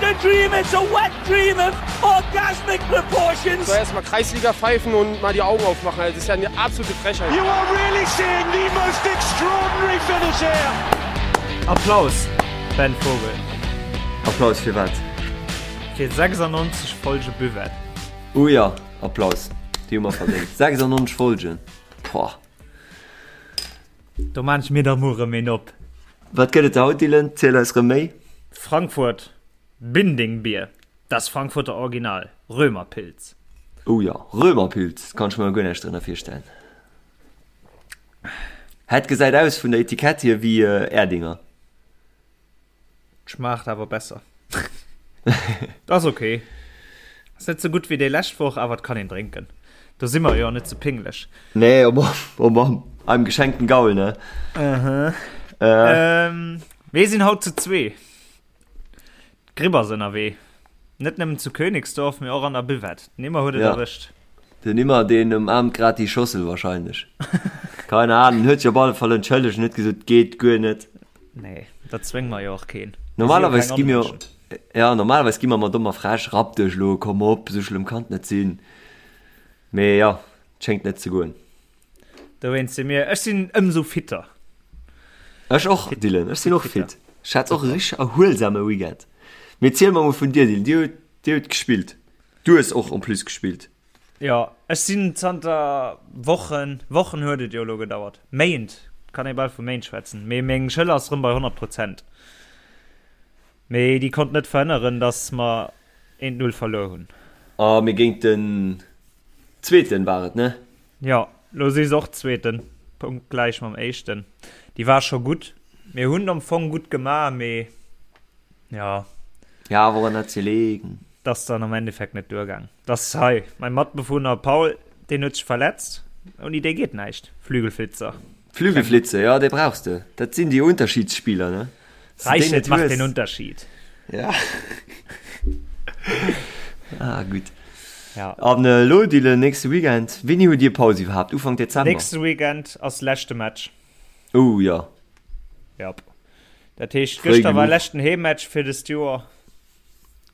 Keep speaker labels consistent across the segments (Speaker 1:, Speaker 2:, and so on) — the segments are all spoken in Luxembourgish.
Speaker 1: a dream, it's a wet dream of orgasmic proportions.
Speaker 2: So erstmal Kreisliga pfeifen und mal die Augen aufmachen. Das ist ja eine absolute Frechheit.
Speaker 1: You are really seeing the most extraordinary finish here.
Speaker 3: Applaus, Ben Vogel.
Speaker 4: Applaus fir wat?
Speaker 3: Fir 96 Folge Buvette.
Speaker 4: Oh ja, Applaus. Déi hu mer verdéngt. 96 Folgen. Pouah.
Speaker 3: Do maan ech mir da muer rem een op.
Speaker 4: Wat gëtt et haut, Dylan? Ziel eis rem méi.
Speaker 3: Frankfurt Bindingbier, das Frankfurter Original, Römerpilz.
Speaker 4: Oh jo, Römerpilz, kann ech mer guer näischt drënner virstellen. Het gesäit aus vun der Etikett hier wéi Erdinger.
Speaker 3: Schmaacht awer besser. Ass ok. Ass net sou gutt wéi déi lescht Woch, awer et kann een drénken. Do si mer jo net sou pinglech.
Speaker 4: Nee, oh Mann, oh Mann, einem geschenkten Gaul, ne?
Speaker 3: Aha. Äh. Ähm, mir sinn haut zu zwee. D'Gripp ass ënnerwee. Net nëmmen zu Königsdorf, mee och an der Buvette. Den Immer huet et
Speaker 4: Ja.
Speaker 3: erwëscht.
Speaker 4: Den Immer, deen ëmaarmt grad déi Schossel wahrscheinlech. Keine Ahnung, huet sech op alle Fall entschëllegt an huet gesot, geet guer net.
Speaker 3: Nee, dat zwénge mer jo och keen.
Speaker 4: Normalerweis gi mir ja, normalerweis gi mer mat domm a frech, rapp dech elo, komm op, esou schlëmm kann et net sinn. Mee ja, et schéngt net ze goen.
Speaker 3: Dowéinst si mir, ech sinn ëmsou fitter.
Speaker 4: Ech och, Dylan, ech sinn och fit. Ech hat och e richteg erhuelsame Weekend. Mee ziel mer mol vun dir, Dylan, dir hutt, dir hutt gespillt. Du hues och en plus gespillt.
Speaker 3: Jo, ech sinn zanter Wochen, Wochen huet et jo elo gedauert, Méint, kann ee bal vu Méint schwätzen, mee meng Schëller ass rëm bei 100 Prozent. Mee déi konnt net verhënneren, datt mer eent Null verluer hunn.
Speaker 4: A mee géint den Zweeten war et, ne?
Speaker 3: Jo, lo si se och Zweeten, punktgläich mam Éischten. Déi war scho gutt. Mir hunn am Fong gutt gemaach, mee jo.
Speaker 4: Ja, woran hat se gelegen?
Speaker 3: 't ass dann am Endeffekt net duergaang. 't ass hei mäi Matbewunner Paul, deen huet sech verletzt. Ouni dee geet näischt. Flügelflitzer.
Speaker 4: Flügelflitzer, jo, dee brauchs de. Dat sinn déi Unterschiedsspieler, ne?
Speaker 3: Reichelt macht den Unterschied.
Speaker 4: Ja. Ah, gutt.
Speaker 3: Ja.
Speaker 4: An elo, Dylan, nächste Weekend, wéini hutt Dir Paus iwwerhaapt? Ufank Dezember?
Speaker 3: Nächste Weekend ass leschte Match.
Speaker 4: Oh, jo.
Speaker 3: Jap. Dat heescht,
Speaker 4: Fréi
Speaker 3: gëschter war
Speaker 4: genuch.
Speaker 3: leschten Heemmatch fir dëst Joer.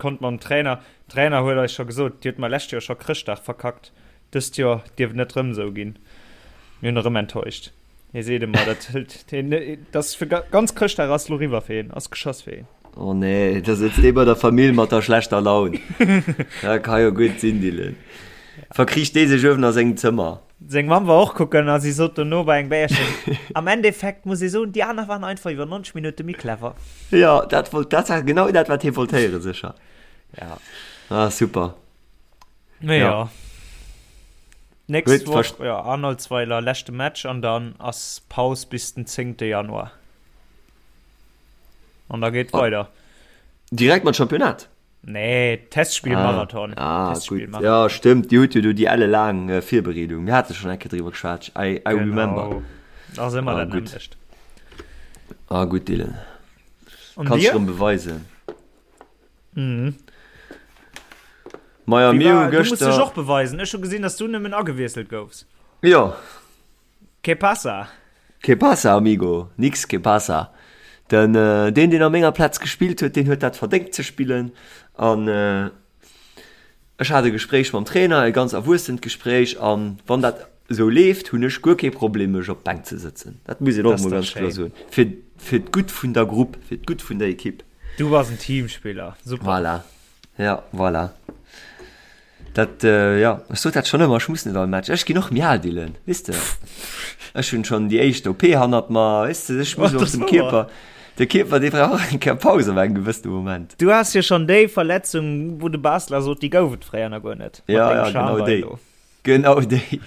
Speaker 3: Konnt mam Trainer, Trainer huet eis scho gesot, Dir hutt mer lescht Joer scho Chrëschtdag verkackt, dëst Joer dierf et net rëm esou ginn. Mir hunn erëm enttäuscht. Hie seet ëmmer, dat hëlt hien, dat ass fir ganz Chrëschtdag ass lo riwwer fir hien, ass geschoss fir hien.
Speaker 4: Oh nee, da sëtzt dee bei der Famill mat der schlechter Laun. Dat ka jo gutt sinn, Dylan. Verkricht dee sech uewen a sengem Zëmmer.
Speaker 3: Seng Mamm war och kucken a si sot dono bei engem Béierchen, Am Endeffekt muss ee soen, déi aner waren einfach iwwer 90 Minutte méi clever.
Speaker 4: Jo, dat wollt, dat war genau dat, wat hie wollt héieren, sécher.
Speaker 3: Ja.
Speaker 4: Ah, super.
Speaker 3: Mee
Speaker 4: Ja.
Speaker 3: jo. Nächst
Speaker 4: Huet
Speaker 3: Woch,
Speaker 4: verst-
Speaker 3: jo, Arnoldsweiler, leschte Match an dann ass Paus bis den 10. Januar. An da geet
Speaker 4: Ah.
Speaker 3: weider.
Speaker 4: Direkt mat Championnat?
Speaker 3: Nee, Testspielmarathon.
Speaker 4: Ah, ah
Speaker 3: Testspiel
Speaker 4: gut. Ja, stimmt. Dir hutt jo do déi ellelaang äh, Virbereedung. Mir hate schon eng Kéier driwwer geschwat. I, I remember.
Speaker 3: Ass ëmmer
Speaker 4: Ah,
Speaker 3: dat
Speaker 4: gutt.
Speaker 3: nämmlecht.
Speaker 4: Ah, gutt, Dylan.
Speaker 3: Und
Speaker 4: Kannst
Speaker 3: dir?
Speaker 4: du rëm beweisen.
Speaker 3: Mhm.
Speaker 4: Maja,
Speaker 3: Wie
Speaker 4: mir
Speaker 3: war,
Speaker 4: hu
Speaker 3: du musst dech
Speaker 4: gëschter.
Speaker 3: och beweisen. Ech hu gesinn, dass du nëmmen agewiesselt goufs.
Speaker 4: Jo.
Speaker 3: Que pasa?
Speaker 4: Que pasa, amigo? Nix que pasa. Den, deen, deen a menger Plaz gespillt huet, deen huet dat verdéngt ze spillen. An ech hat e Gespréich mam Trainer, e ganz erwuessent Gespréich. An wann dat esou leeft, hunn ech guer kee Problem, mech op d'Bänk ze sëtzen. Dat muss een och emol ganz kloer soen. Fir, fir d'Gutt vun der Grupp, fir d'Gutt vun der Ekipp.
Speaker 3: Du bass en Teamspiller. Super.
Speaker 4: Voilà. Ja, voilà. Dat, jo, ech sot dat schonn ëmmer, ech muss net all Match. Ech ginn och méi al, Dylan, weess de. Ech hunn schonn déi éischt OP hannert mer, weess de, ech muss och dem Kierper, de Kierper, dee brauch och eng Kéier Paus op engem gewëssene Moment.
Speaker 3: Du has jo schonn déi Verletzung, wou de Basler sot, déi gouf et fréier nach guer net.
Speaker 4: Ja, ja, genau déi. Genau déi.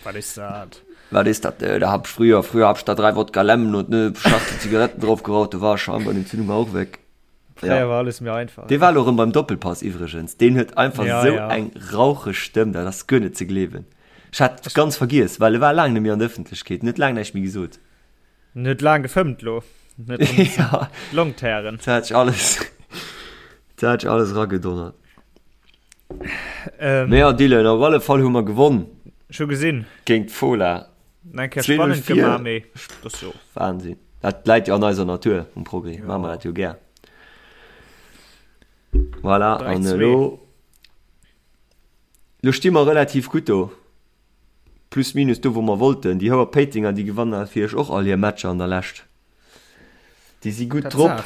Speaker 3: Wat is dat?
Speaker 4: Wat is dat? Da hab ich früher, früher hab ich da drei Wodka Lemon und ne Schachtel Zigaretten drauf geraucht, da war Schambein-Entzündung auch weg.
Speaker 3: Fréier
Speaker 4: Ja.
Speaker 3: war alles méi einfach.
Speaker 4: Dee war elo erëm beim Doppelpass iwwregens. Deen huet einfach
Speaker 3: Ja,
Speaker 4: esou
Speaker 3: ja.
Speaker 4: eng raucheg Stëmm, dat ass guer net ze gleewen. Ech hat et ganz vergiess, well e war laang net méi an der Ëffentlechkeet, en huet laang näischt méi gesot.
Speaker 3: En huet laang gefëmmt lo. En huet erëm
Speaker 4: Ja,
Speaker 3: d'Long tären.
Speaker 4: dat hat sech alles, dat hat sech alles eragedonnert.
Speaker 3: Ähm,
Speaker 4: Mee ja, Dylan, op alle Fall hu mer gewonn
Speaker 3: Ech hu gesinn.
Speaker 4: géint d'Fola.
Speaker 3: Eng Kéier
Speaker 4: 2-0
Speaker 3: spannend
Speaker 4: vir.
Speaker 3: gemaach, mee das jo.
Speaker 4: Wahnsinn. Dat läit jo an eiser Natur um Progrès.
Speaker 3: Ja.
Speaker 4: Maache mer dat jo gär. Voilà, an elo lo sti mer relativ gutt do. Plus minus do wou mer wollten. Déi Houer Péitenger déi gewannen natierlech och all hir Matcher an der Lescht. Déi si gutt drop.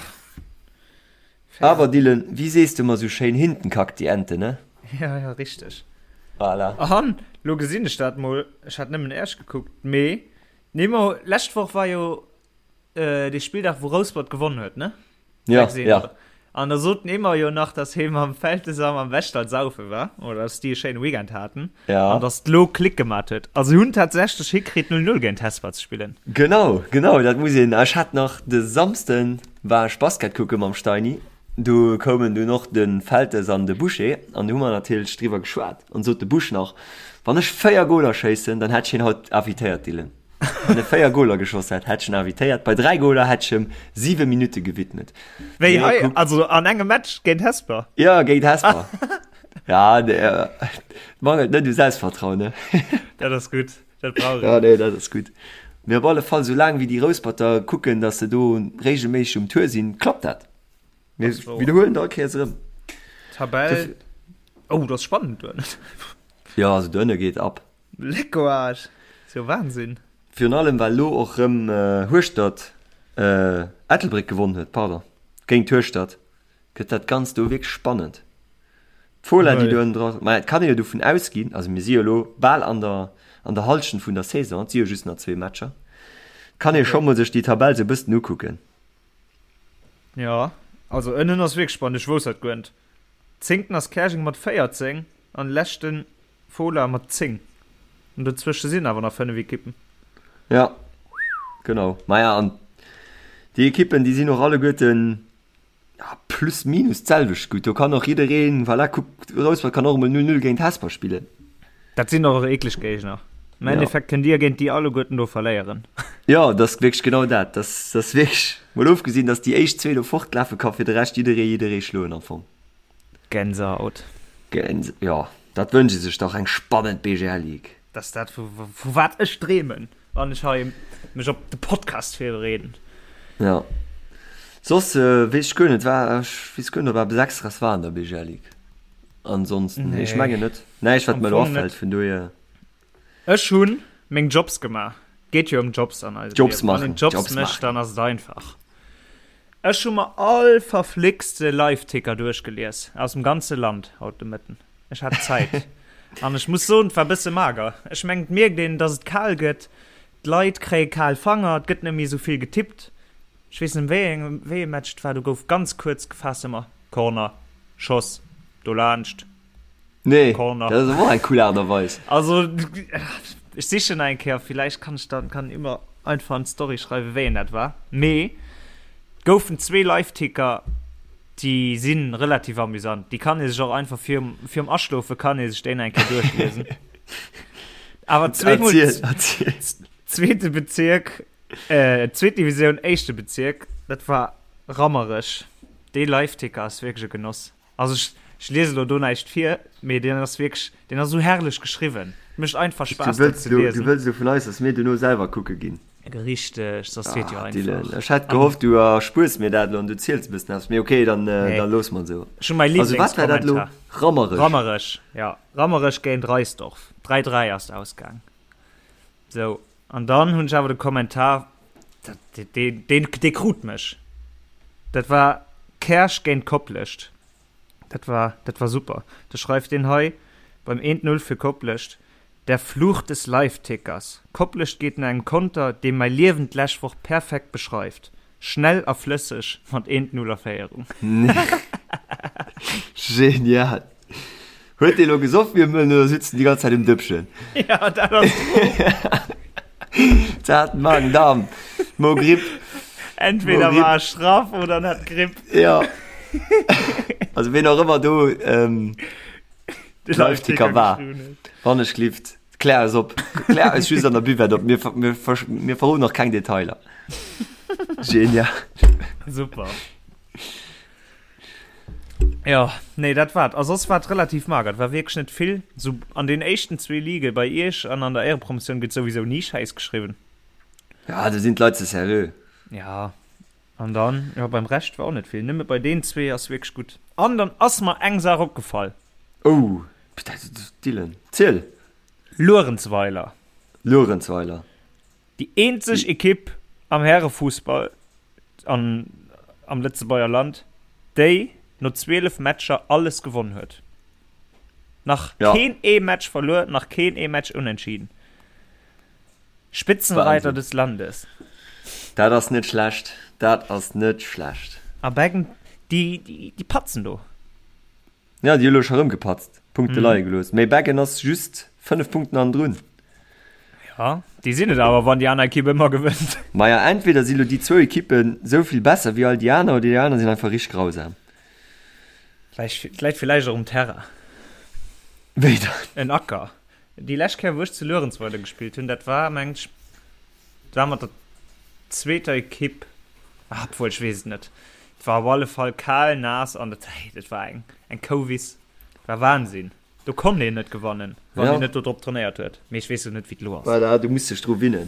Speaker 4: Awer Dylan, wéi sees de ëmmer sou schéin, hinten kackt die Ente, ne?
Speaker 3: Ja, ja, richteg.
Speaker 4: Voilà.
Speaker 3: An lo gesinn ech dat mol, ech hat nëmmen Esch gekuckt, mee nee, ma lescht Woch war jo äh, dee Spilldag, wou Rouspert gewonnen huet, ne?
Speaker 4: Ja, ja.
Speaker 3: An da sot den Emmer jo nach, dass hie mam Feltes a mam Westall saufe war, oder dass déi e schéine Weekend haten.
Speaker 4: Ja.
Speaker 3: An dass d'lo Klick gemat huet. Also si hunn tatsächlech hikritt 0-0 géint Hesper ze spillen.
Speaker 4: Genau, genau, dat muss een. Ech hat nach de Samsden war ech Basket kucke mam Steini. Do koumen dunn och de Feltes an de Boucher an do hu mer natierlech driwwer geschwat. An sot de Busch nach, wann ech 4 Goler schéissen, dann hätt ech hien haut invitéiert, Dylan. Wann e 4 Goler geschoss hätt, hätt ech en invitéiert. Bei 3 Goler hätt ech em 7 Minutte gewidmet.
Speaker 3: Wéi hei, also an engem Match géint Hesper?
Speaker 4: Ja, géint Hesper. Ja, nee, äh, mangelt net u Selbstvertrauen, ne?
Speaker 3: Dat ass gutt, dat brauch een.
Speaker 4: Ja, nee, dat ass gutt. Mee op alle Fall, soulaang wéi déi Rousperter kucken, datt se do regelméisseg um Tour sinn, klappt dat. Mir widderhuelen dat all Kéiers erëm.
Speaker 3: Tabell, oh, dat ass spannend do ënnen.
Speaker 4: Ja, also do ënne geet ab.
Speaker 3: Leckoarsch! Ass jo Wahnsinn!
Speaker 4: Virun allem well lo och rëm Hueschtert, Ettelbréck gewonn huet, pardon, géint Hueschtert, gëtt dat Ganzt do wierklech spannend. D'Fola déi do ënnen dra, ma et kann ee jo dovun ausginn, also mir si jo lo bal an der an der Hallschent vun der Saison, et si jo just nach zwee Matcher, kann ee scho mol sech déi Tabell sou e bëssen ukucken.
Speaker 3: Jo, also ënnen ass wierklech spannend, ech wousst dat guer net. Zéngten ass Käerjeng mat 14 an leschten Fola mat 10. An dozwësche sinn awer nach 5 Ekippen.
Speaker 4: Ja, genau. Maja, an déi Ekippen, déi sinn och alleguerten ja, plus minus d'selwecht gutt. Do kann och jiddereen, voilà, kuck, Rouspert kann och emol 0-0 géint Hesper spillen.
Speaker 3: Dat sinn och eekleg Géigner. Am Endeffekt kënnt Dir géint déi alleguerten do verléieren.
Speaker 4: Jo, dat ass wierklech genau dat. Dat ass wierklech, mol ofgesinn, datt déi éischt zwee do fortlafe ka fir de Rescht jidderee jidderee schloen am Fong.
Speaker 3: Gänsehaut.
Speaker 4: Gänse, jo, dat wënscht ee sech dach, eng spannend BGL Ligue.
Speaker 3: Dat ass dat, vu, vu wat ech dreemen, wann ech hei mech op de Podcast virbereeden.
Speaker 4: Jo. Soss weess ech guer net, war, ech weess guer net, ob eppes Extraes war an der BGL Ligue. Ansonsten, nee, ech mengen net. Näischt, wat
Speaker 3: Am
Speaker 4: mer elo
Speaker 3: Fong net.
Speaker 4: afält, vun dohier.
Speaker 3: Ech hunn meng Jobs gemaach. Geet jo ëm Jobs an eisem
Speaker 4: Jobs
Speaker 3: Liewen. Wann
Speaker 4: maachen,
Speaker 3: een Jobs
Speaker 4: Jobs
Speaker 3: mécht,
Speaker 4: maachen.
Speaker 3: dann ass et einfach. Ech hu mer all verflixte Liveticker duerchgelies aus dem ganze Land haut de Mëtten. Ech hat Zäit. An ech muss soen, et war bësse mager. Ech mengen, et mierkt een, dass et kal gëtt. D'Leit kréie kal Fanger, et gëtt net méi esou vill getippt. Ech weess net, wéi eng, wéi ee Match et war, do gouf ganz kuerz gefaasst ëmmer Corner, Schoss, dolaanscht.
Speaker 4: Nee,
Speaker 3: Corner.
Speaker 4: dat ass awer och eng cool Aart a Weis.
Speaker 3: Also, ech sichen nach eng Kéier, villäicht kann ech dann, kann immer einfach an d'Story schreiwen, wéi een dat war. Mee et goufen zwee Liveticker, déi si relativ amüsant. Déi kann ee sech och einfach virum, virum Aschlofe kann ee sech déi nach eng Kéier duerchliesen. Awer zweemol,
Speaker 4: Erziel, erziel.
Speaker 3: zweete Bezierk, äh, zweet Divisioun, éischte Bezierk, dat war Rammerech. Dee Liveticker ass wierklech e Genoss. Also ech, ech liese lo do näischt vir, mee deen ass wierklech, deen ass esou herrlech geschriwwen. Et mécht einfach
Speaker 4: Du
Speaker 3: Spaass, dat
Speaker 4: wëlls
Speaker 3: ze
Speaker 4: elo, du
Speaker 3: liesen.
Speaker 4: wëlls elo vun eis, dass mir duerno selwer kucke ginn.
Speaker 3: Richteg, soss wier et jo
Speaker 4: Ah, Dylan,
Speaker 3: einfach.
Speaker 4: ech hätt
Speaker 3: An
Speaker 4: gehofft, du erspuers mir dat elo an du ziels e bëssen eppes, mee okay, dann, äh,
Speaker 3: nee,
Speaker 4: dann loosse mer et esou.
Speaker 3: ech hu mäi
Speaker 4: Also wat war dat elo?
Speaker 3: Lieblingskommentar.
Speaker 4: Rammerech.
Speaker 3: Rammerech, ja. Rammerech géint Reisdorf. 3, 3 ass et ausgaang. Sou, an dann hunn ech awer de Kommentar, dat, deen, deen, dee krut mech. Dat war Käerch géint Koplescht. Dat war, dat war super. Da schreift deen hei beim eent Null fir Koplescht, Der Fluch des Livetickers. Koplescht geet no engem Konter, dee mäi Liewen d'lescht Woch perfekt beschreift. Schnell a flësseg mat eent Null a Féierung.
Speaker 4: Genial! Huet dee lo gesoff wéi e Mëllen oder sitzt en déi ganz Zäit um Dëppchen?
Speaker 3: Ja, dat ass d'Fro.
Speaker 4: Zart Magen-Darm, Mo-Gripp.
Speaker 3: Entweder war e schraff oder en hat Gripp.
Speaker 4: Ja. Also ween och ëmmer do ähm,
Speaker 3: De
Speaker 4: Live-Ticker war. Wann ech glift. Klär eis op. Klär eis just an der Buvette op. Mir, mir, mir verroden nach keng Detailer. Genial.
Speaker 3: Super. Ja, nee, dat war A soss war et relativ mager. Et war wierklech net vill. So an den éischten zwee Ligue bei Iech an an der Éierepromotioun gëtt souwisou ni Schäiss geschriwwen.
Speaker 4: Ja, do sinn d'Leit ze seriö.
Speaker 3: Ja. An dann, jo, beim Rescht war och net vill. Nëmme bei deenen zwee ass wierklech gutt. An dann ass mer eng Saach opgefall.
Speaker 4: Oh, Dylan, ziel!
Speaker 3: Luerenzweiler.
Speaker 4: Luerenzweiler.
Speaker 3: Déi eenzeg Ekipp am Härefussball an am Lëtzebuerger Land, déi no 12 Matcher alles gewonn huet. Nach
Speaker 4: Ja.
Speaker 3: keen ee Match verluer, nach keen ee Match unentschieden. Spitzenreiter
Speaker 4: Wahnsinn.
Speaker 3: des Landes.
Speaker 4: Dat ass net schlecht, dat ass net schlecht.
Speaker 3: A Beggen, déi, déi, déi patzen do.
Speaker 4: Ja, déi hu lo scho rëm gepatzt, Punkte leie gelooss. Mee Beggen ass just 5 Punkten hannendrun.
Speaker 3: Ja, déi sinn et awer, wann déi aner Ekipp ëmmer gewënnt.
Speaker 4: Maja, entweder si lo déi zwou Ekippen esou vill besser wéi all déi aner, oder déi aner sinn einfach richteg grausam.
Speaker 3: Läit, läit villäicht och um Terrain.
Speaker 4: Wéi dann?
Speaker 3: En Acker. Déi lescht Kéier, wou ech zu Luerenzweiler gespillt hunn, dat war, mengen ech, dat war mat der zweeter Ekipp, ah, obwuel, ech weess et net. Et war op alle Fall kal, naass an dat, hey, dat war eng, eng Kouwiss. Dat war Wahnsinn. Do konnt een net gewannen, wann
Speaker 4: Ja.
Speaker 3: een net do drop trainéiert huet. Mee ech weess jo net, wéi et elo ass.
Speaker 4: Voilà, du muss dech dru winnen.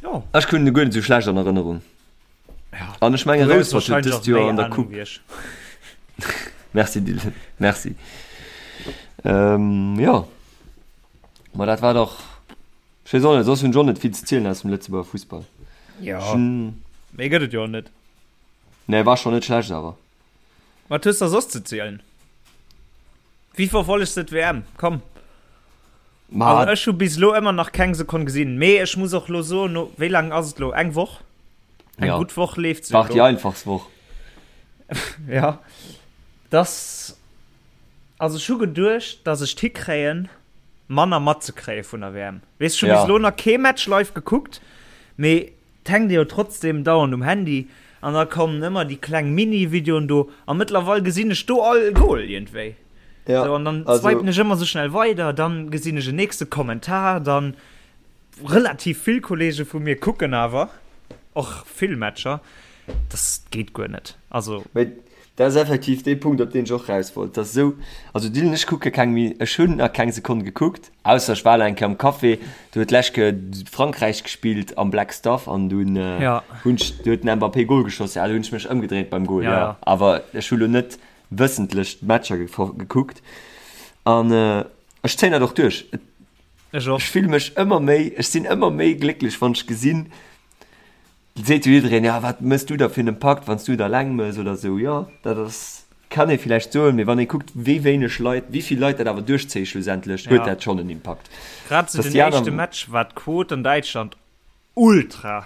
Speaker 3: Jo.
Speaker 4: Ech hunn e guer net esou schlecht an Erënnerung.
Speaker 3: Ja.
Speaker 4: An ech menge
Speaker 3: Du hues
Speaker 4: Rouspert huet
Speaker 3: wahrscheinlech
Speaker 4: dëst
Speaker 3: och
Speaker 4: Joer
Speaker 3: méi
Speaker 4: an der
Speaker 3: Ahnung
Speaker 4: Coupe.
Speaker 3: wéi ech.
Speaker 4: Merci Dylan, merci. Ähm, jo. Ma dat war dach, ech weess och net, soss hunn ech och net vill ze zielen aus dem Lëtzebuerger Fussball.
Speaker 3: Ja.
Speaker 4: Ech hunn,
Speaker 3: Méi gëtt et jo och net.
Speaker 4: nee, war schonn net schlecht awer.
Speaker 3: Wat hues de soss ze zielen? Wéi verfollegs de d'WM? Komm.
Speaker 4: Ma
Speaker 3: Also ech hu bis elo ëmmer nach keng Sekonn gesinn, mee ech muss och lo soen, no wéi laang ass et lo? Eng Woch? Eng
Speaker 4: Ja.
Speaker 3: gutt Woch leeft se
Speaker 4: war déi
Speaker 3: elo.
Speaker 4: einfachst Woch.
Speaker 3: Ja. Dass, also ech hu geduecht, dass ech d'hikréien, manner matzekréie vun der WM. Weess, ech hu
Speaker 4: Ja.
Speaker 3: bis elo nach kee Match live gekuckt, mee 't hänkt ee jo trotzdem dauernd um Handy an da kommen ëmmer déi kleng Mini-Videoen do a mëttlerweil gesinn ech do all Goal iergendwéi.
Speaker 4: Ja,
Speaker 3: So, an dann
Speaker 4: also
Speaker 3: swipen ech ëmmer sou schnell weider, dann gesinn ech en nächste Kommentar, dann relativ vill Kollege vu mir kucken awer och vill Matcher. Das geet guer net. Also.
Speaker 4: Mee dat ass effektiv dee Punkt, op deen ech och raus wollt. Dat ass esou, also Dylan, ech kucke keng méi, ech hunn nach keng Sekonn gekuckt, ausser ech war elo eng Kéier am Café, do huet d'lescht Kéier Frankräich gespillt am Black Stuff an dunn
Speaker 3: Ja.
Speaker 4: hunn ech, do huet den Mbappé Gol geschoss, ja, do hunn ech mech ëmgedréint beim Gol,
Speaker 3: Ja,
Speaker 4: ja.
Speaker 3: ja.
Speaker 4: Awer ech hu lo net wëssentlech d'Matcher gekuckt an ech zéien dat och duerch.
Speaker 3: Ech och.
Speaker 4: Ech fille mech ëmmer méi, ech sinn ëmmer méi glécklech, wann ech gesinn, Et seet jo jiddereen, ja wat mëss du da fir en Impakt, wann s du et alleng mëss oder esou. Jo, dat ass, kann ee villäicht soen, mee wann ee kuckt, wéi wéineg Leit, wéi vill Leit dat awer duerchzéie schlussendlech, huet
Speaker 3: Ja.
Speaker 4: dat schonn en Impakt.
Speaker 3: Grad zu
Speaker 4: Dass
Speaker 3: den
Speaker 4: déi aner.
Speaker 3: éischte Match war d'Quot an Däitschland ultra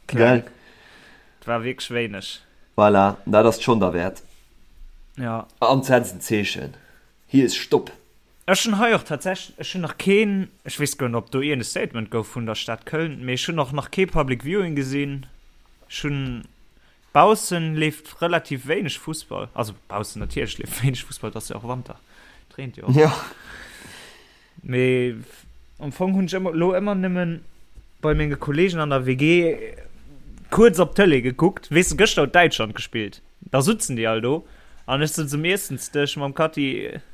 Speaker 3: kleng.
Speaker 4: Gell?
Speaker 3: Et war wierklech wéineg.
Speaker 4: Voilà, dat ass schonn derwäert.
Speaker 3: Ja.
Speaker 4: An setzt en Zeechen. Hier ist Stopp!
Speaker 3: Ech hunn hei och tatsächlech, ech hunn nach keen, ech weess guer net, ob do iergend e Statement gouf vun der Stad Köln, mee ech hunn och nach kee Public Viewing gesinn. Ech hunn, baussen leeft relativ wéineg Fussball, also baussen natierlech leeft wéineg Fussball, et ass jo och Wanter, et reent jo och.
Speaker 4: Jo.
Speaker 3: Mee am Fong hunn ech ëmmer, elo ëmmer nëmmen bei menge Kollegen an der WG kuerz op d'Tëlee gekuckt. Weess de, gëschter huet Däitschland gespillt. Da sutzen déi all do an ech sëtz um Iessensdësch mam Kathi,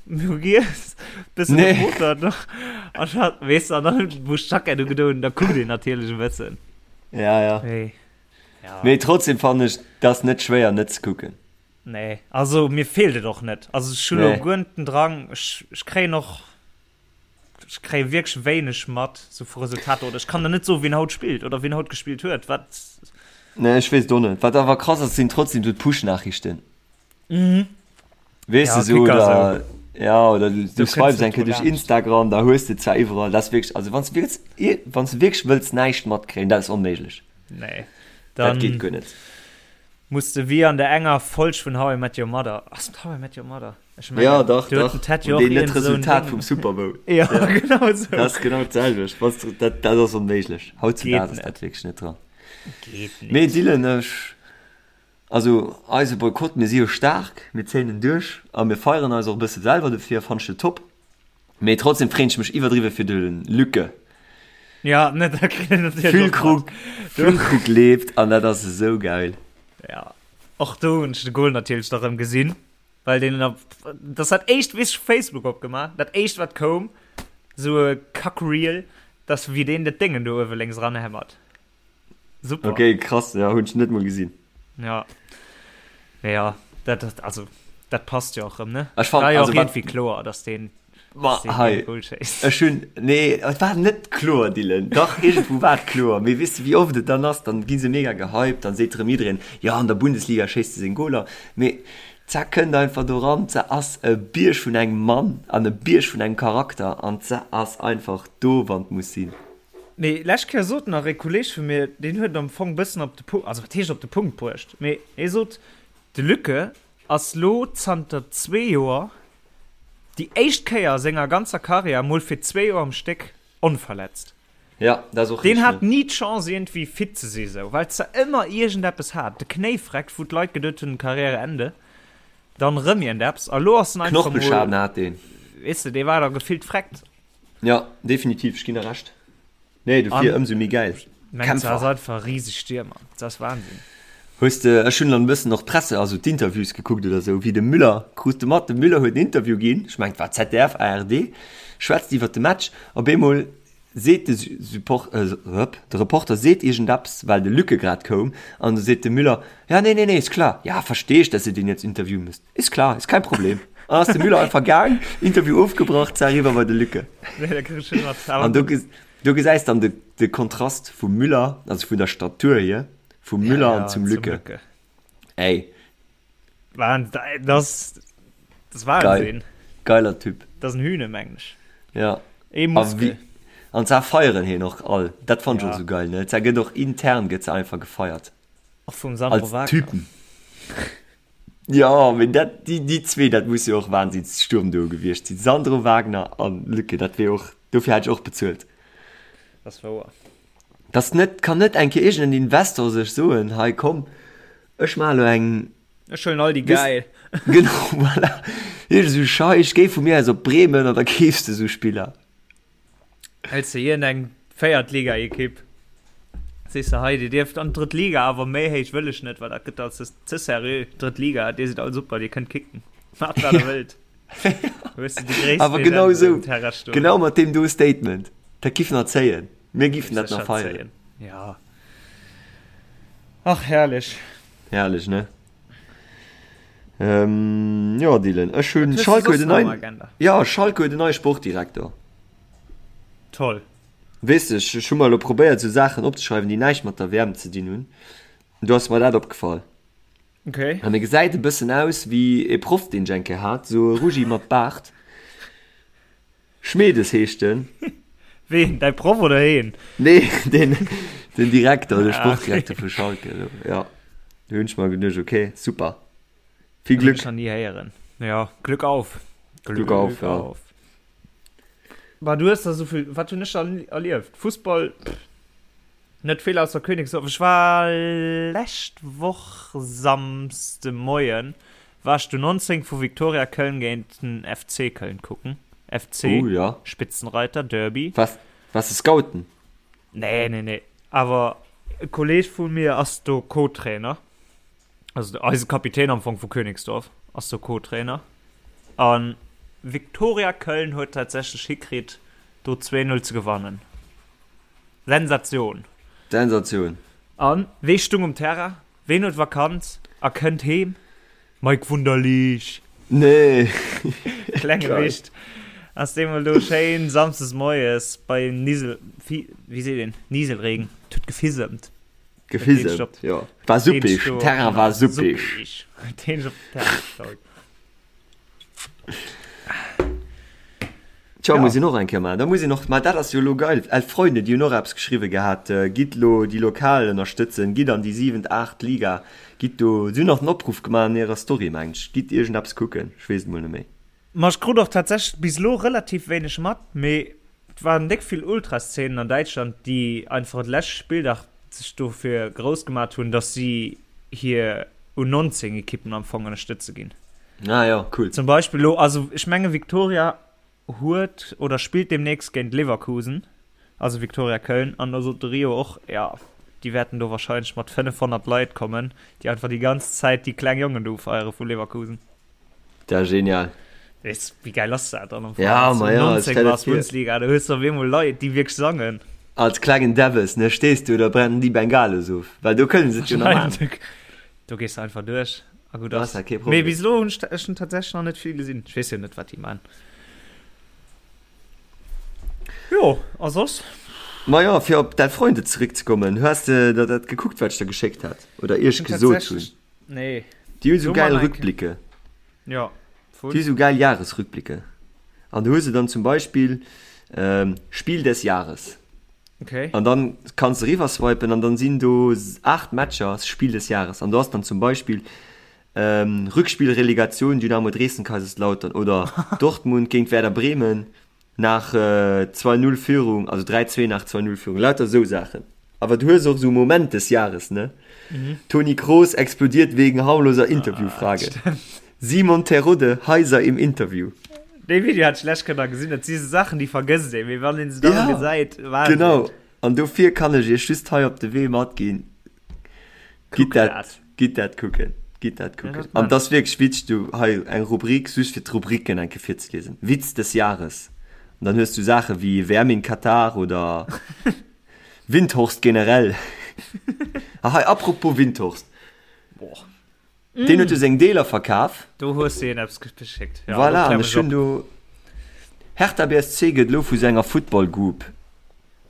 Speaker 3: mir hu giess, bëssen
Speaker 4: Nee.
Speaker 3: gefuttert an da, weess de, an dann wou ech d'Jackett ugedoen hunn, da kuckt een natierlech e bëssen.
Speaker 4: Ja, ja.
Speaker 3: Mee, ja.
Speaker 4: Mee trotzdem fannen ech, et ass net schwéier net ze kucken.
Speaker 3: Nee, also mir feelt et och net. Also ech hu lo
Speaker 4: Nee.
Speaker 3: guer net den Drang, ech, ech kréien och Ech kréie wierklech wéineg mat sou vu Resultater oder ech kann der net soen, wien haut spillt oder wien haut gespillt huet. Wat?
Speaker 4: Nee, ech weess et och net. Wat awer krass ass, sinn trotzdem sou d'Push-Nachrichten.
Speaker 3: Mhm.
Speaker 4: Weess
Speaker 3: Ja,
Speaker 4: de sou,
Speaker 3: Kicker
Speaker 4: oder
Speaker 3: sou.
Speaker 4: ja, oder du, du
Speaker 3: Du kënns
Speaker 4: swipes
Speaker 3: net
Speaker 4: eng Kéier
Speaker 3: dru
Speaker 4: duerch
Speaker 3: laanscht.
Speaker 4: Instagram, da hues de zwar iwwerall, dat ass wierklech, also wann s du wierklech, wann s du wierklech wëlls näischt matkréien, dat ass onméiglech.
Speaker 3: Nee.
Speaker 4: Dat geet
Speaker 3: Dann
Speaker 4: guer net.
Speaker 3: muss de wéi an der enger Folg vun How I Met Your Mother, ass et How I Met Your Mother? Ech mengen,
Speaker 4: Ja, dach,
Speaker 3: do huet
Speaker 4: dach.
Speaker 3: den Ted jo
Speaker 4: An
Speaker 3: och
Speaker 4: deen net
Speaker 3: iergend esou en
Speaker 4: d'Resultat
Speaker 3: Ding.
Speaker 4: vum Super Bowl.
Speaker 3: Ja,
Speaker 4: Ja.
Speaker 3: genau esou.
Speaker 4: Dat ass genau d'selwecht. Was, dat, dat ass onméiglech. Hautzudaags
Speaker 3: Geet
Speaker 4: ass dat
Speaker 3: net.
Speaker 4: wierklech net dran.
Speaker 3: Geet
Speaker 4: Mee
Speaker 3: net.
Speaker 4: Dylan, ech, also eise Boykott, mir si jo staark, mir zéien en duerch a mir feieren eis och e bësse selwer dofir, fannt ech jo top. Mee trotzdem freen ech mech iwwerdriwwe fir de Lücke.
Speaker 3: Ja, ne, da kritt een natierlech och mat.
Speaker 4: Füllkrug, Füllkrug leeft an dat ass esou geil.
Speaker 3: Ja, och do hunn ech de Goal natierlech da rëm gesinn. Well deen op, das dat éischt, wéi ech Facebook opgemaach, dat éischt wat koum, sou e Kackreel, dass wéi deen dat Déngen do uewe lénks eranhämmert. Super.
Speaker 4: Okay, krass, ja, hunn ech net mol gesinn.
Speaker 3: Ja. Mee ja, dat, dat, also, dat passt jo och rëm, ne?
Speaker 4: Ech fand,
Speaker 3: War jo
Speaker 4: also
Speaker 3: och
Speaker 4: wat,
Speaker 3: iergendwéi kloer, dass deen,
Speaker 4: ma
Speaker 3: dass deen
Speaker 4: hei,
Speaker 3: dee Goal schéisst.
Speaker 4: ech hunn, nee, et war net kloer, Dylan, dach, iergendwou war et kloer, mee weess de wéi oft et dann ass, dann gi se mega gehypt, dann seet rëm jiddereen, jo, an der Bundesliga schéisst e seng Goaler, mee d'Sa kënnt einfach do ran, d'Sa ass e Bierg vun engem Mann an e Bierg vun engem Charakter an d'Sa ass einfach do, wann et muss sinn.
Speaker 3: Mee lescht Kéier sot nach e Kolleg vu mir, deen huet et am Fong bëssen op de Punkt, also wat heescht op de Punkt bruecht, mee hie sot, de Lücke ass lo zanter zwee Joer déi éischt Kéier a senger ganzer Karriär mol fir zwee Joer am Stéck onverletzt.
Speaker 4: Ja, dat ass och
Speaker 3: Deen
Speaker 4: richteg,
Speaker 3: hat
Speaker 4: ne?
Speaker 3: ni d'Chance iergendwéi fit ze si sou, well se ëmmer iergendeppes hat, de Knéi freckt, wou d'Leit geduet hunn Karriäreende, dann rëm iergendeppes a lo ass en einfach mol,
Speaker 4: Knorpelschaden hat deen.
Speaker 3: weess de, dee war da gefillt freckt.
Speaker 4: Ja, definitiv, ech ginn der Recht. Nee, dofir
Speaker 3: An
Speaker 4: ëmsou méi gäil.
Speaker 3: mengt se ass
Speaker 4: Kämpfer.
Speaker 3: einfach e riseg Stiermer, dat ass Wahnsinn.
Speaker 4: Hues de, ech hunn dann e bëssen och d'Presse, also d'Interviews gekuckt oder sou, wéi de Müller, krus de mat, de Müller huet en Interview ginn, ech mengen et war ZDF, ARD, schwätzt iwwert de Match, op eemol seet de Support, rep, de Reporter seet iergendeppes, well de Lücke grad koum, an du seet de Müller, ja nee, nee, nee, ist klar, ja verstehe ich, dass ihr den jetzt interviewen müsst. Ist klar, ist kein Problem. An ass de Müller einfach gaang, Interview ofgebrach, zack, eriwwer bei de Lücke.
Speaker 3: Nee, da krieg ech net mat.
Speaker 4: An do, do gesäis dann de, de Kontrast vum Müller, also vun der Statur hier, vum
Speaker 3: Ja,
Speaker 4: Müller an
Speaker 3: ja,
Speaker 4: zum
Speaker 3: zum
Speaker 4: Lücke.
Speaker 3: Lücke.
Speaker 4: Ey.
Speaker 3: Wahnsinn, das, das
Speaker 4: Geil.
Speaker 3: Wahnsinn.
Speaker 4: Geiler Typ.
Speaker 3: Das ist ein Hühne, meng ech.
Speaker 4: Ja.
Speaker 3: Ee
Speaker 4: A
Speaker 3: Muskel.
Speaker 4: wie, an zwar feieren hien och all. Dat fand ich och
Speaker 3: Ja.
Speaker 4: sou geil, ne? Zwar gëtt och intern gëtt se einfach gefeiert.
Speaker 3: Och vum Sandro
Speaker 4: Als
Speaker 3: Wagner.
Speaker 4: Typen. Jo, mee dat, déi, déi zwee, dat muss jo och Wahnsinnssturmduo gewiescht sinn. Sandro Wagner an Lücke, dat wier och, dofir hätt ech och bezuelt.
Speaker 3: Dat ass wouer.
Speaker 4: Dass net, kann net eng Kéier iergend en Investor sech soen, hei komm, ech maache lo eng.
Speaker 3: Ech huelen all déi
Speaker 4: Weess,
Speaker 3: gäil.
Speaker 4: genau, voilà. Iergend esou Scheich, géi vu mir aus op Bremen an da keefs de esou Spiller.
Speaker 3: Hëls de iergend eng Véiertliga-Ekipp, sees de, hei, dir dierft an d'drëtt Liga, awer méi héich wëll ech net, well dat gëtt alt ze, ze seriö. Drëtt Liga, dir sidd all super, dir kënnt kicken, maacht wat der wëllt. Hues de déi gréissten
Speaker 4: Awer genau
Speaker 3: Legenden
Speaker 4: esou,
Speaker 3: um Terrain stoen.
Speaker 4: genau mat deem do Statement, dat giff nach zéien, mir giffen
Speaker 3: Géif
Speaker 4: dat nach
Speaker 3: sécher
Speaker 4: feieren.
Speaker 3: zéien, ja. Ach, herrlech.
Speaker 4: Herrlech, ne? Ähm, jo, Dylan, ech
Speaker 3: Wat
Speaker 4: hunn,
Speaker 3: hues de
Speaker 4: Schalke huet
Speaker 3: soss
Speaker 4: en
Speaker 3: nach am
Speaker 4: neien,
Speaker 3: Agenda?
Speaker 4: ja, Schalke huet en neie Sportdirektor.
Speaker 3: Toll.
Speaker 4: Weess de, ech, ech hu mer elo probéiert, esou Saachen opzeschreiwen, déi näischt mat der WM ze dinn hunn. Do ass mer dat opgefall.
Speaker 3: Okay.
Speaker 4: An e gesäit e bëssen aus wéi e Proff, deen ech eng Kéier hat, esou e Ruggi mat Baart. Schmedes heescht en.
Speaker 3: Ween? Däi Proff oder heen?
Speaker 4: Nee, den, den Direkter, de
Speaker 3: Ah, okay.
Speaker 4: Sportdirekter vu Schalke. Elo. Ja, do hunn ech mer geduecht, okay, super. Vill
Speaker 3: Hunn
Speaker 4: Glück.
Speaker 3: ech nach ni héieren. Ja, Glück auf.
Speaker 4: Glück auf, ja.
Speaker 3: Bah, du hues da sou vill, wat hunn ech da erlieft? Fussball, pff, net vill ausser Königsdorf. Ech war lescht Woch Samsde Moien war ech du 19 vu Viktoria Köln géint den FC Köln kucken. FC,
Speaker 4: Oh, ja.
Speaker 3: Spitzenreiter, Derby.
Speaker 4: Was, was de Scouten?
Speaker 3: Nee, nee, nee. Awer e Kolleg vu mir ass do Co-Trainer. Also eise Kapitän am Fong vu Königsdorf ass do Co-Trainer. An Viktoria Köln huet tatsächlech hikritt, do 2-0 ze gewannen. Sensatioun!
Speaker 4: Sensatioun!
Speaker 3: An wee stung um Terrain? Ween huet Vakanz a kënnt heem? Mike Wunderlich!
Speaker 4: Nee!
Speaker 3: Klenge
Speaker 4: Geil.
Speaker 3: Wicht ass deemol do schéin samsdes moies bei Nisel, Fi, wéi seet een, Nieselregen, et huet gefisemt.
Speaker 4: Gefisemt, jo. War suppig, den Terrain war suppig.
Speaker 3: Deen op den Terrain gestaut.
Speaker 4: Tja,
Speaker 3: Ja.
Speaker 4: muss een och eng Kéier maachen. Da muss een och, ma dat ass jo elo geil, Elf Freunde, déi hunn och eppes geschriwwe gehat, gitt elo déi Lokal ënnerstëtzen, gitt an déi siwent, aacht Liga, gitt do, si hunn nach den Opruff gemaach an hirer Story, mengen ech, gitt iergendeppes kucken, ech weess et mol net méi.
Speaker 3: Ma ech krut och tatsächlech bis elo relativ wéineg mat, mee et waren déck vill Ultraszenen an Däitschland, déi einfach de leschte Spilldag sech dofir grouss gemat hunn, dass si hir U19 Ekippen am Fong ënnerstëtze ginn.
Speaker 4: Ah jo, cool.
Speaker 3: Zum Beispill elo, also ech menge Viktoria huet oder spillt deemnächst géint Leverkusen, also Viktoria Köln, an da sot de Rio och, jo, déi wäerten do warscheinlech mat 500 Leit kommen, déi einfach déi ganz Zäit déi kleng Jongen do ufeiere vu Leverkusen.
Speaker 4: Dat ass genial.
Speaker 3: Weess, wéi gäil ass dat dann am Fong?
Speaker 4: Ja, ma ja,
Speaker 3: 19
Speaker 4: stell dir
Speaker 3: war
Speaker 4: vir.
Speaker 3: Bundesliga, da hues du op eemol Leit, déi wierklech sangen.
Speaker 4: Als klengen Debbes, ne, stees du da brennen déi Bengalos of, well do kënnen se et jo nach maachen.
Speaker 3: Do gees du einfach duerch a gutt
Speaker 4: ass.
Speaker 3: Kee Problem. Mee bis elo hunn ech ech hunn tatsächlech nach net vill gesinn. Ech weess jo net, wat déi man. Jo, a soss?
Speaker 4: Ma jo, fir op Däi Freunde zeréckzekommen, hues de der dat gekuckt, wat ech der geschéckt hat oder iech gesot hunn?
Speaker 3: Nee.
Speaker 4: Déi hunn esou gäil Rückblicke.
Speaker 3: Jo.
Speaker 4: Déi hu sou gäil Jahresrückblicke. An do hu se dann zum Beispill Spiel des Jahres.
Speaker 3: Okay.
Speaker 4: An dann kanns de eriwwer swipen an dann sinn do 8 Matcher Spiel des Jahres. An do ass dann zum Beispill Rückspiel Relegation Dynamo Dresden Kaiserslautern oder Dortmund géint Werder Bremen. Nach 2, 0 Führung, also 3, 2 nach 2, 0 Führung, lauter esou Saachen. Awer du hues och esou Moment des Jahres, ne? Toni Kroos explodiert wegen harmloser Interviewfrage. Simon Terodde heiser im Interview.
Speaker 3: Dee Video hat ech lech kënner gesinn. Dat si sou Saachen, déi vergësst ee, mee wann een se dann gesäit,
Speaker 4: Wahnsinn. Genau, an dofir kann ech iech just hei op de Wee matginn, Gitt dat, gitt dat kucken, gitt dat kucken. Ja, An das wierklech witzeg, du hei eng Rubrik just fir d'Rubriken eng Kéier virzeliesen. Witz des Jahres. An dann hues du Saache wéi WM in Katar oder Windhorst generell. Ah hei, apropos Windhorst.
Speaker 3: Boah.
Speaker 4: Deen huet jo seng Deeler verkaf.
Speaker 3: Do hues de een eppes geschéckt.
Speaker 4: Ja, voilà, an ech hunn do Hertha BSC gëtt elo vu senger Football Group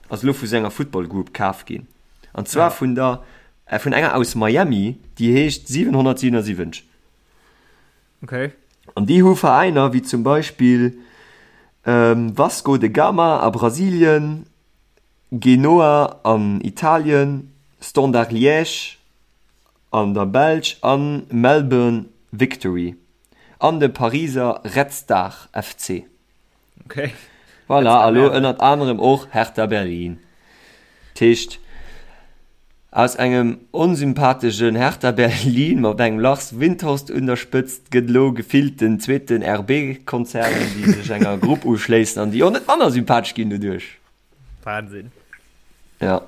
Speaker 4: ass elo vu senger Football Group kaf ginn. An zwar ja. vun der äh, vun enger aus Miami, déi heescht 777.
Speaker 3: Okay.
Speaker 4: An déi hu Veräiner wéi zum Beispill ähm, Vasco de Gama a Brasilien, Genoa an Italien, Standard Liège, an der Belsch a Melbourne Victory an de Pariser Red Star FC.
Speaker 3: Okay.
Speaker 4: Voilà, a lo ënnert anerem och Hertha Berlin. Dat heescht, aus engem onsympatheschen Hertha Berlin mat engem Lars Windhorst un der Spëtzt gëtt elo gefillt den zweeten RB-Konzern, déi sech enger Grupp uschléissen an déi och net manner sympathesch ginn doduerch.
Speaker 3: Wahnsinn.
Speaker 4: Ja.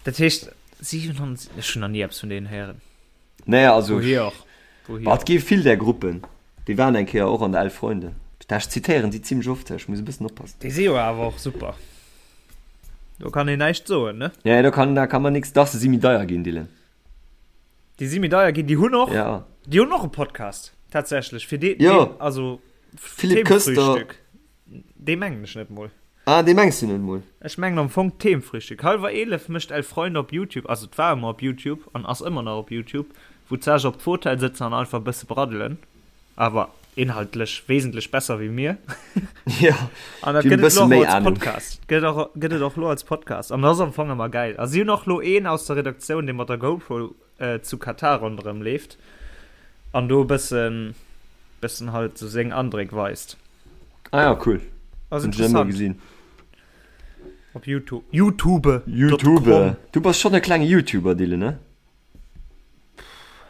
Speaker 3: Dat heescht 700, ech hunn nach ni eppes vun deenen héieren.
Speaker 4: Nee, also.
Speaker 3: Wouhier och? Wouhier
Speaker 4: Bah, et gi vill där Gruppen. Déi waren eng Kéier och an der Elf Freunde. Ech zitéieren si zimmlech oft, ech muss e bëssen oppassen.
Speaker 3: Déi si jo awer och super. Do kann een näischt soen, ne?
Speaker 4: Nee, do kann, da kann man nix. Dach, se si méi deier ginn, Dylan.
Speaker 3: Déi si méi deier ginn. Déi hunn och,
Speaker 4: Ja.
Speaker 3: déi hunn och e Podcast, tatsächlech. Fir dee,
Speaker 4: Jo.
Speaker 3: deen, also
Speaker 4: Philippe Köster.
Speaker 3: Themenfrühstück. Dee mengen ech net mol.
Speaker 4: Ah, dee mengs du net mol?
Speaker 3: Ech mengen am Fong Themenfrühstück. Halwer 11 mécht Elf Freunde op Youtube, also et war ëmmer op Youtube an ass ëmmer nach op Youtube, wou d'Sage op d'Fotell sëtzen an einfach e bësse braddelen, awer inhaltlech wesentlech besser wéi mir.
Speaker 4: Jo,
Speaker 3: An dat
Speaker 4: déi hunn
Speaker 3: gëtt
Speaker 4: e
Speaker 3: et
Speaker 4: bësse
Speaker 3: lo och
Speaker 4: méi
Speaker 3: als
Speaker 4: Ahnung.
Speaker 3: Podcast. Gëtt och, gëtt et och lo als Podcast. An dat ass am Fong ëmmer gäil. A si hunn och lo een aus der Redaktioun, dee mat der GoPro zu Katar ronderëm leeft an do e bëssen, bëssen halt sou seng Andréck weist.
Speaker 4: Ah ja, cool.
Speaker 3: Ass
Speaker 4: Hunn ech net emol
Speaker 3: interessant.
Speaker 4: gesinn.
Speaker 3: Op Youtube. Youtube.
Speaker 4: Youtube. Du bass schonn e klenge Youtuber, Dylan, ne?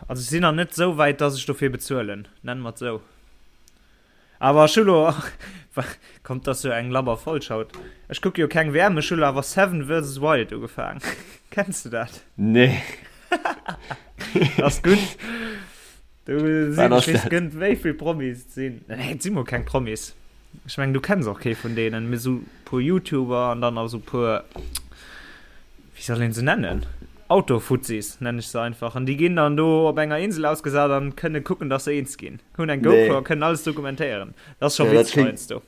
Speaker 3: Also ech sinn nach net sou wäit, dass ech dofir bezuelen, nennen mer et sou. Awer ech hu lo, kommt dass jo eng labber Folg haut, ech kucke jo keng WM, ech hu lo awer Seven versus Wild ugefaang. Kenns du dat?
Speaker 4: Nee.
Speaker 3: Ass gutt. Do sinn,
Speaker 4: Wat ass
Speaker 3: ech weess
Speaker 4: dat?
Speaker 3: gënnt wéi vill Promis et sinn. Nee, et si mol keng Promis. Ech mengen du kenns och kee vun deenen, mee sou puer Youtuber an dann nach sou puer, wéi soll een se nennen? Autofuzzis nennen ech se einfach. An déi ginn dann do op enger Insel ausgesat an kënne kucken, dass se eens ginn. Hunn eng GoPro a
Speaker 4: Nee.
Speaker 3: kënnen alles dokumentéieren. Dat ass scho
Speaker 4: Ja, dat
Speaker 3: witzeg
Speaker 4: kléngt.
Speaker 3: heiansdo.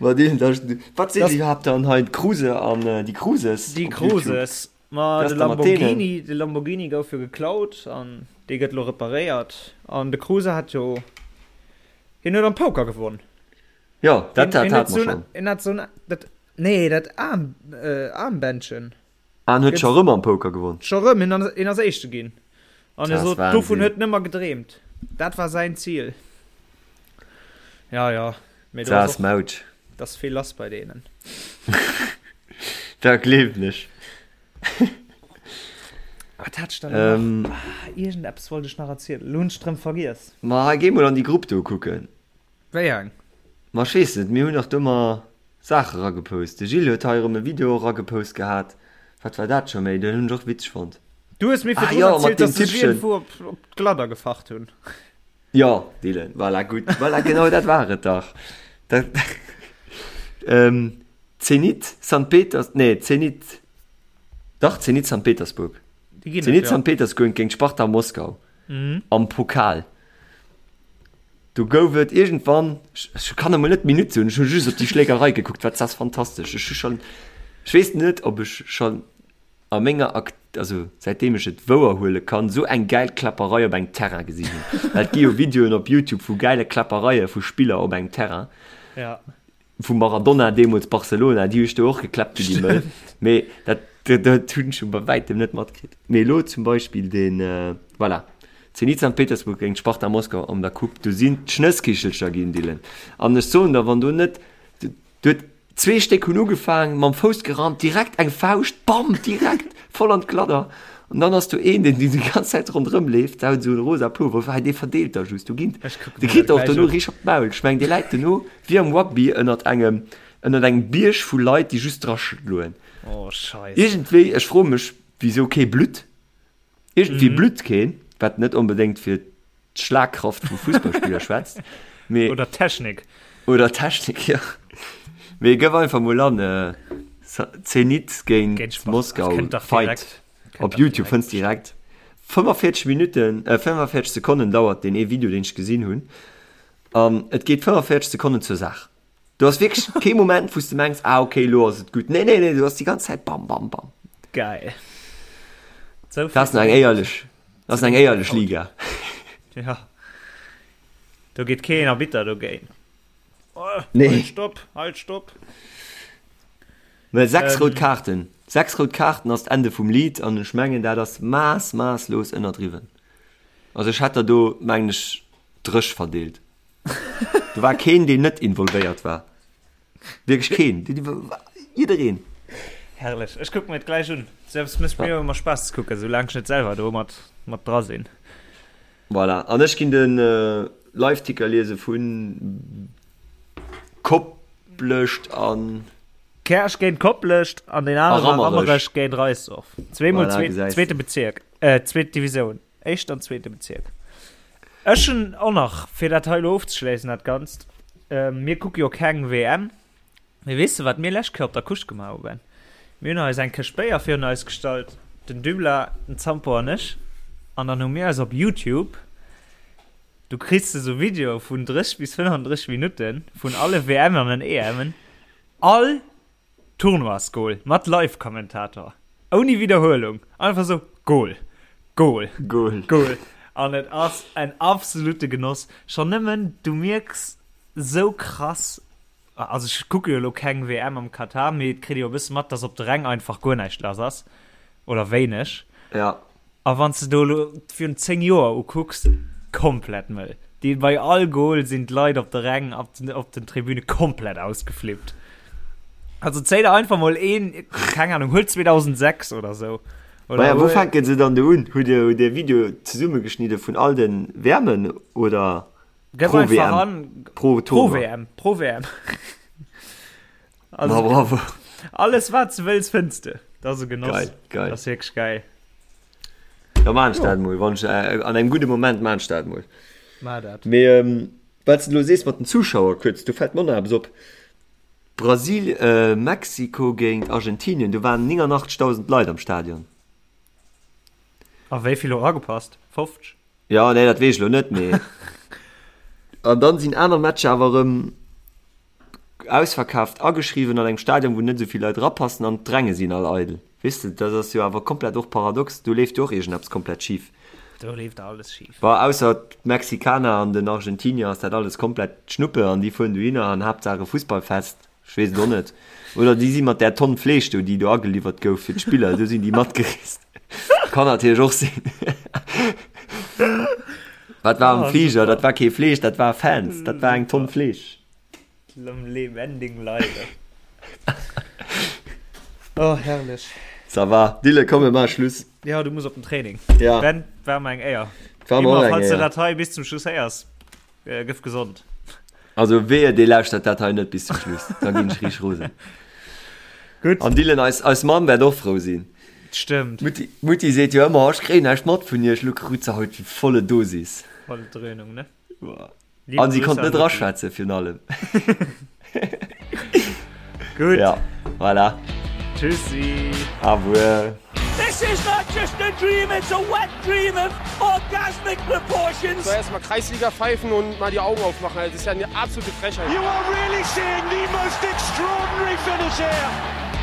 Speaker 4: Ma déi, da, wat sinn
Speaker 3: Das,
Speaker 4: déi iwwerhaapt dann hei? D'Kruse an déi Kruses
Speaker 3: déi
Speaker 4: op YouTube.
Speaker 3: Kruses. Ma
Speaker 4: Wéi
Speaker 3: de
Speaker 4: ass da mat deenen?
Speaker 3: Lamborghini, de Lamborghini gouf jo geklaut an dee gëtt elo reparéiert. An de Kruse hat jo, hien huet am Poker gewonn.
Speaker 4: Jo, dat,
Speaker 3: Hien,
Speaker 4: dat
Speaker 3: hien huet
Speaker 4: hate mer
Speaker 3: sou en,
Speaker 4: schonn.
Speaker 3: hien hat sou en, dat, nee, dat Aarm, äh, Aarmbändchen.
Speaker 4: Ah, en huet scho
Speaker 3: Gëtt
Speaker 4: rëm am Poker gewonn.
Speaker 3: scho rëm, hien ass, hien ass Éischte ginn. An hie
Speaker 4: Dat ass
Speaker 3: sot, dovun
Speaker 4: Wahnsinn.
Speaker 3: huet en ëmmer gedreemt. Dat war säin Zil. Ja, ja, mee do
Speaker 4: Dat
Speaker 3: ass
Speaker 4: ass
Speaker 3: och,
Speaker 4: Mautsch.
Speaker 3: dat ass vill lass bei deenen.
Speaker 4: Dat gleewen ech.
Speaker 3: Wat hat ech dann elo nach?
Speaker 4: Ähm,
Speaker 3: Ah, iergendeppes wollt ech nach erzielen. Elo hunn ech et rëm vergiess.
Speaker 4: ma hei, géi mol an déi Grupp do kucken.
Speaker 3: Wéi eng?
Speaker 4: Ma ech weess net, mir hunn dach do ëmmer Saache ragepost. De Gilles huet hei erëm e Video ragepost gehat. Wat war dat scho méi? Den hunn ech och witzeg fonnt.
Speaker 3: Du hues mir
Speaker 4: Ah
Speaker 3: virdrun
Speaker 4: jo, mat
Speaker 3: erzielt,
Speaker 4: deem
Speaker 3: dass sech
Speaker 4: Tippchen.
Speaker 3: iergendwou op, op d'Gladder gefacht hunn.
Speaker 4: Jo, Dylan, voilà, gutt. Voilà, genau dat war et dach. Dat, ähm, Zenit Sankt Peters, nee Zenit, dach Zenit Sankt Petersburg. Zenit Sankt Petersburg géint Sparta Moskau am Pokal. Do gouf et iergendwann, ech kann emol net d'Minutt soen, ech hu just op déi Schlägerei gekuckt, wat ass fantastesch. Ech hu schonn, ech weess net, ob ech schonn a menger Ak, also säitdeem ech et wouer huele kann, esou eng gäil Kläpperei op engem Terrain gesinn hunn. Well et gi jo Videoen op Youtube vu gäile Kläppereie vu Spiller op engem Terrain.
Speaker 3: Ja.
Speaker 4: Vum Maradona deemools Barcelona, déi hu sech do och gekläppt wéi déi Mëll. Mee dat, dat hunn ech scho bei wäitem net matkritt. Mee elo zum Beispill deen, voilà, Zenit Sankt Petersburg géint Sparta Moskau an der Coupe, do sinn d'Schnësskichelcher ginn, Dylan. An ech soen der, wann do net, do huet zwee Stéck hunn ugefaang, mam Fouss gerannt, direkt eng Fauscht, bam, direkt voll an d'Gladder. An dann ass do een, deen déi ganz Zäit ronderëm leeft, der huet esou e rosa Pullover, hei dee verdeelt da just, do ginn, dee kritt och dono richteg op d'Maul. Ech mengen, dee läit dono wéi am Rugby ënnert engem, ënnert engem Bierg vu Leit, déi just draschloen.
Speaker 3: Oh Scheisse.
Speaker 4: Iergendwéi, ech froe mech, wisou kee Blutt, iergendwéi blutt keen, wat net onbedéngt fir d'Schlagkraft vu Fussballspiller schwätzt,
Speaker 3: mee. Oder d'Technik.
Speaker 4: Oder d'Technik, jo. Mee gëff einfach mol an, Zenit géint Moskau Fight op Youtube, fënns direkt. 45 Minutten, 45 Sekonnen dauert deen ee Video, deen ech gesinn hunn, an et geet 45 Sekonnen zur Saach. Do ass wierklech kee Moment, wou s de mengs, ah okay, elo ass et gutt. Nee, nee, nee, du ass déi ganz Zäit bam, bam, bam.
Speaker 3: Geil.
Speaker 4: So dat ass eng éierlech, dat ass eng éierlech Liga.
Speaker 3: Ja. Do geet keen Arbitter dogéint. Oh, nee. Halt, stopp, halt, stopp.
Speaker 4: Mä 6 rout Kaarten, 6 rout Kaarten ass d'Ende vum Lidd an ech mengen, dat ass maass, maasslos ënnerdriwwen. Also ech hätt der do, mengen ech, dréch verdeelt. Do war keen, deen net involvéiert war. Wierklech keen. Jiddereen.
Speaker 3: Herrlech. Ech kucken mir et gläich un. Selbst mécht mir jo ëmmer Spaass ze kucken, soulaang ech net selwer do mat, mat dra sinn.
Speaker 4: Voilà. An ech ginn de Liveticker liese vu Koplescht an.
Speaker 3: Käerch géint Koplescht an deen anere war Rammerech géint Reisdorf. Zweemol zweete Bezierk, zweet Divisioun. Éischten an zweete Bezierk. Ech hunn och nach, fir dat hei elo ofzeschléissen, dat Ganzt, mir kucke jo keng WM, mee weess de, wat mir lescht Kéier op der Couche gemaach hu, Ben? Mir hunn eis eng Këscht Béier virun eis gestallt, den Dybla, den Zampo an ech, an dann hu mir eis op Youtube, du kriss de sou Videoe vun 30 bis 35 Minutte vun alle WMen an den EMen, all Tournoisgoal mat Live-Kommentator, ouni Widderhuelung, einfach sou Goal, Goal,
Speaker 4: Goal,
Speaker 3: Goal an et ass en absolute Genoss. Schonn nëmmen du mierks sou krass, also ech kucke jo elo keng WM am Katar, mee et kritt ee jo e bësse mat, dass op de Ränk einfach guer näischt lass ass oder wéineg.
Speaker 4: Ja.
Speaker 3: A wann s de do elo virun 10 Joer ukucks, komplett mëll. Déi bei all Goal sinn d'Leit op de Räng, op den, op den Tribüne komplett ausgeflippt. Also zéi der einfach mol een, keng Ahnung, huel 2006 oder sou.
Speaker 4: Oder Maja, wou fänken se dann do un? Hutt Dir, hutt Dir Video zesummegeschnidde vun all den WMen oder
Speaker 3: Gëff pro einfach WM? an,
Speaker 4: Pro
Speaker 3: pro
Speaker 4: Tournoi?
Speaker 3: WM, pro WM. Also,
Speaker 4: Ma bravo.
Speaker 3: Alles wat du wëlls fënns de. Dat ass e Genoss.
Speaker 4: Geil, geil.
Speaker 3: Dat ass wierklech geil.
Speaker 4: Da maan ech dat mol, wann ech äh, an engem gudde Moment maan ech dat mol.
Speaker 3: Mar dat.
Speaker 4: Mee ähm, wat du lo sees mat den Zuschauer kuerz, do fält mer nach eppes op. Brasil, äh, Mexiko géint Argentinien, do waren 89.000 Leit am Stadion.
Speaker 3: A wéi vill hu ragepasst? 50?
Speaker 4: Ja, nee, dat weess ech lo net, mee an dann sinn aner Matcher awer erëm ausverkaaft ageschriwwen an engem Stadion, wou net esou vill Leit erapassen an d'Ränge sinn all eidel. Weess de, dat ass jo awer komplett och paradox, do leeft jo och iergendeppes komplett schif.
Speaker 3: Do leeft alles schif.
Speaker 4: Bon, ausser d'Mexikaner an den Argentinier ass dat alles komplett Schnuppe an déi fueren dohinner an Haaptsaach e Fussballfest, ech weess et och net. Oder déi si mat där Tonn Fleesch do, déi do ageliwwert gouf fir d'Spiller, do sinn déi matgereest. Kann natierlech och sinn. Wat war am Fliger? Dat war kee Fleesch, dat war Fans, dat war eng Tonn Fleesch.
Speaker 3: Am lebendigen Leibe. Oh, herrlech.
Speaker 4: Ça va. Dille, komm, mir maache Schluss.
Speaker 3: Ja, du muss op den Training.
Speaker 4: Ja.
Speaker 3: Ben, war mer eng Éier.
Speaker 4: War mer
Speaker 3: Immer,
Speaker 4: och eng
Speaker 3: falls du
Speaker 4: Éier.
Speaker 3: dat hei bis zum Schluss héiers, äh, gëff gesond.
Speaker 4: Also wehe, dee lauschtert dat hei net bis zum Schluss. Da ginn ech riicht rosen.
Speaker 3: Gutt.
Speaker 4: An Dylan, eis, eis Mamm wäert och frou sinn.
Speaker 3: Stëmmt.
Speaker 4: D'Mutti, d'Mutti seet jo ëmmer, ech kréien näischt mat vun iech. Lo krut se haut déi volle Dosis.
Speaker 3: Volle Dröhnung, ne?
Speaker 4: Boah.
Speaker 3: Liebe
Speaker 4: An si
Speaker 3: Grüße
Speaker 4: konnt
Speaker 3: an
Speaker 4: net
Speaker 3: Mutti.
Speaker 4: raschwätzen, virun allem.
Speaker 3: Gutt.
Speaker 4: Ja. Voilà.
Speaker 3: Tschüssi.
Speaker 4: Au revoir.
Speaker 1: This is not just a dream, it's a wet dream of orgasmic proportions.
Speaker 2: So erstmal Kreisliga pfeifen und mal die Augen aufmachen. Das ist ja eine absolute Frechheit.
Speaker 5: You are really seeing the most extraordinary finish here.